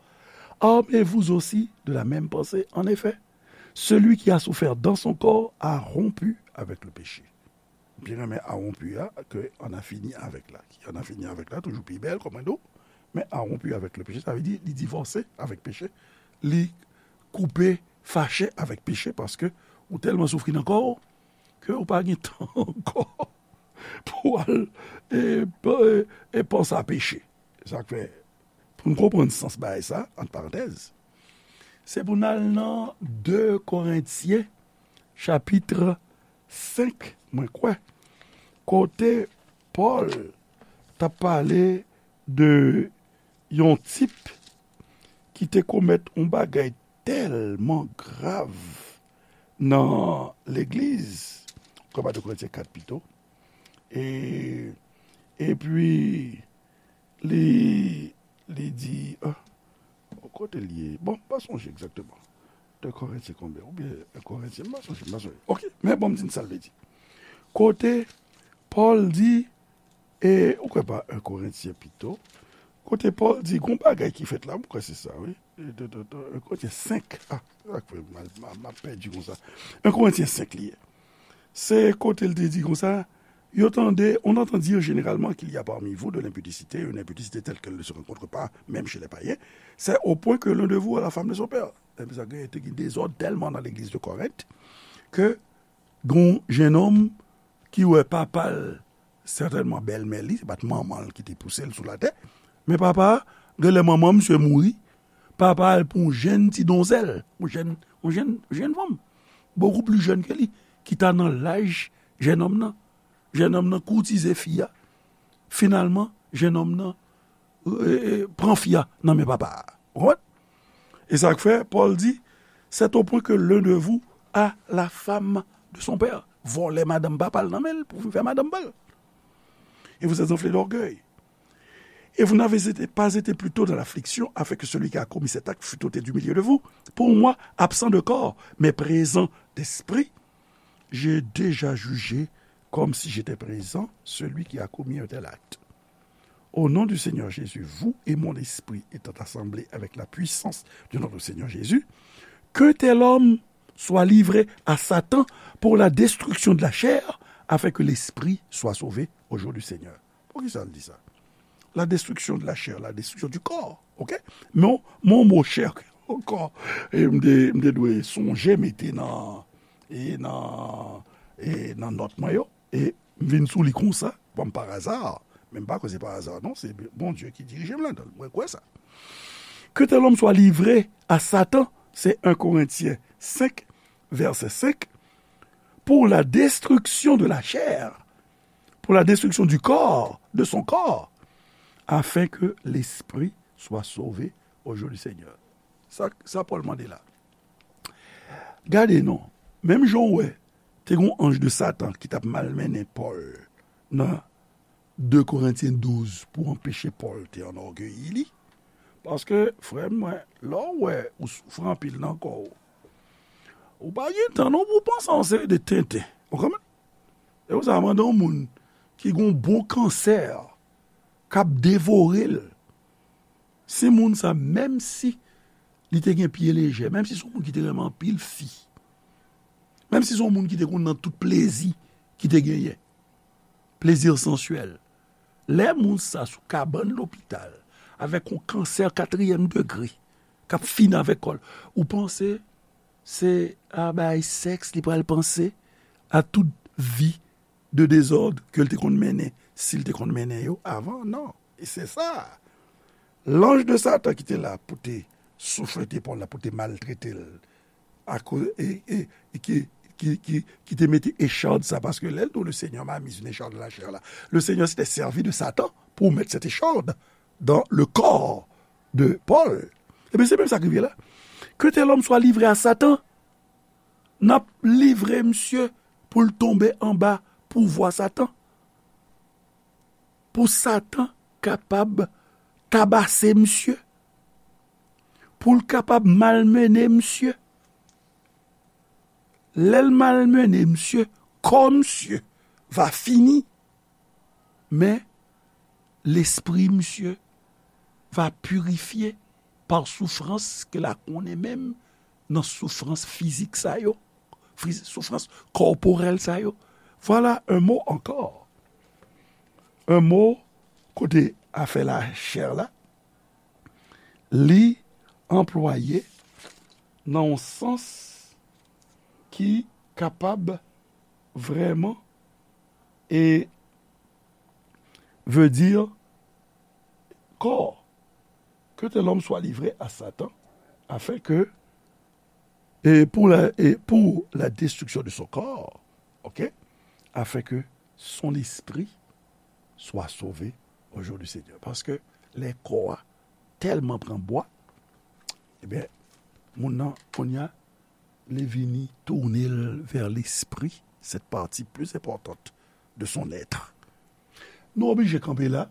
armez-vous aussi de la même pensée. En effet, celui qui a souffert dans son corps a rompu avec le péché. Byen renmen a rompu a, ke en a fini avec la. Ki en a fini avec la, toujou pi bèl, kòm mwen di w. Men a rompu avec le péché, sa vle di, li divòse avèk peche. Li koupe, fache avèk peche, paske ou tèlman soufri nan kò w, ke ou pa gen tan ankò pou w al, e, e, e panse a peche. Sa k fè, pou n konprann sans bagay sa, ant parantèz, se pou n al nan de Korentyen, chapit senk, mwen kwè, kote Pòl t ap pale de yon tip ki te komèt yon bagay tèlman grav nan legliz, kòm de Korentyen kat pito. E, epi, li, li di, ah, kote l ye? Bon, m pa sonje egzakteman. De Korentyen konbyen? Oubyen en Korentyen, m pa sonje, m pa sonje. Ok, men bon, m di n sa l vle di. Kote Pòl di, e, ou kwè pa en Korentyen pito, kote Pòl di, gon bagay ki fèt la, m kwè se sa, wi. E, de, de, de, en Korentyen senk, ah, sa k fè m, m, m ap pèdi konsa. En Korentyen senk li ye. Se kote l te di konsa, yo tande, on entend dire généralement qu'il y a parmi vous de l'impudicité, une impudicité telle qu'elle ne se rencontre pas même chez les païens, c'est au point que l'un de vous a la femme de son père. Epi sa gen, te gen dezòd tèlman nan legliz de Korent, ke gon jennonm ki wè papa l, sètènman bèlmè li, se pa t manman l ki te pouse l sou latè, men papa a, genlè manman misye mouri, papa al pran yon jèn ti donzèl, yon jèn, yon jèn, yon jèn fanm, bokou pli jèn ke li, ki ta nan laj jennonm nan. Jennonm nan koutize fi a. Finalman, jennonm nan, e, e, pran fi a nan men papa a. Ou konprann? E sa k fè, Pòl di, c'est au point que l'un de vous a la femme de son père. Vòlè madanm papa l nan men l pou vin fè madanm pa l. Et vous êtes enflé d'orgueil. Et vous n'avez été, pas été plus tôt dans l'affliction, afin que celui qui a commis cet acte fût ôté du milieu de vous. Pour moi, absent de corps, mais présent d'esprit, j'ai déjà jugé comme si j'étais présent celui qui a commis un tel acte. Au nom du Seigneur Jésus, vous et mon esprit étant assemblés avec la puissance de notre Seigneur Jésus, qu'un tel homme soit livré à Satan pour la destruction de la chair, afin que l'esprit soit sauvé au jour du Seigneur. Poukisa l di sa? La destruction de la chair, la destruction du corps, ok? Men, men mo chè ankò, e m te, m te dwe sonje mete nan, e nan, e nan nòt mwen yo, e m vin sou li konsa, kòm pa aza, Men m pa kwè se pa aza, non, se Bondye ki dirije m ladan l. Mwen kwè sa. Que tel homme soit livré à Satan, c'est un Corinthiens cinq, verset cinq, pour la destruction de la chair, pour la destruction du corps, de son corps, afin que l'esprit soit sauvé au jour du Seigneur. Sa, sa Pòl mande la. Gade non, menm jan w wè, te gen yon anj de Satan ki t ap malmennen Pòl nan de Korentyen douz pou anpeche Pòl te anògeyi li. Paske, frè m, mwen, lè w wè ou soufri anpil nan kò w, ou pa gen tan non pou w panse a yon seri de tenten. Ou konprann? E ou sa mande yon moun ki gen yon bon kansè k ap devore l. Si moun sa, menm si li te gen pye lejè, menm si se yon moun ki te renmen anpil fi, menm si se yon moun ki te konn nan tout plezi ki te genyen, plezi sansyèl, lè moun sa sou kabann lopital avèk yon kansè katriyèm degre k ap fini avèk kò l, ou panse se a bay sèks li pral panse a tout vi de dezòd ke l te konn mennen, si l te konn mennen yo avan? Non. E se sa. Lanj de Satan ki te la pou te souflete Pòl la, pou te maltrete l, akoz, e, e, e ki, ki, ki, ki te mete echad sa, paske lè l di w, le Seigneur m'a mis une écharde à la chair la, le Seigneur s'était servi de Satan pour mettre cette écharde dans le corps de Paul. Ebyen, se menm sa k rive la. Que tel homme soit livré à Satan, n ap livre misye pou l tonbe anba pouvwa Satan. Pou Satan kapab tabase misye. Pou l kapab malmennen misye. Lè l malmennen misye, kò misye va fini. Men, lespri misye va pirifye pa soufrans ke l a konnen menm nan soufrans fizik sa yo, fiz-, soufrans kòporèl sa yo. Voilà un mot encore. Un mot kote afè lachè la, li anplwaye nan yon sans ki kapab vrèman e veut dire corps, que tel homme soit livré à Satan, afin que, et pour la, et pour la destruction de son corps, ok, afin que son esprit soit sauvé au jour du Seigneur. Paske lè kò a tèlman pran bwa, ebyen, moun nan, kounye a, li vini tounen l vers l'esprit, cette partie plus importante de son être. Nou oblije kanpe la.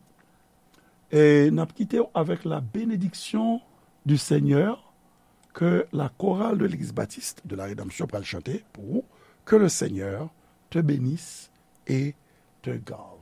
E n ap kite w avec la bénédiction du Seigneur que la chorale de l'Église baptiste de la Rédemption pral chante pour vous, que le Seigneur te bénisse et te garde.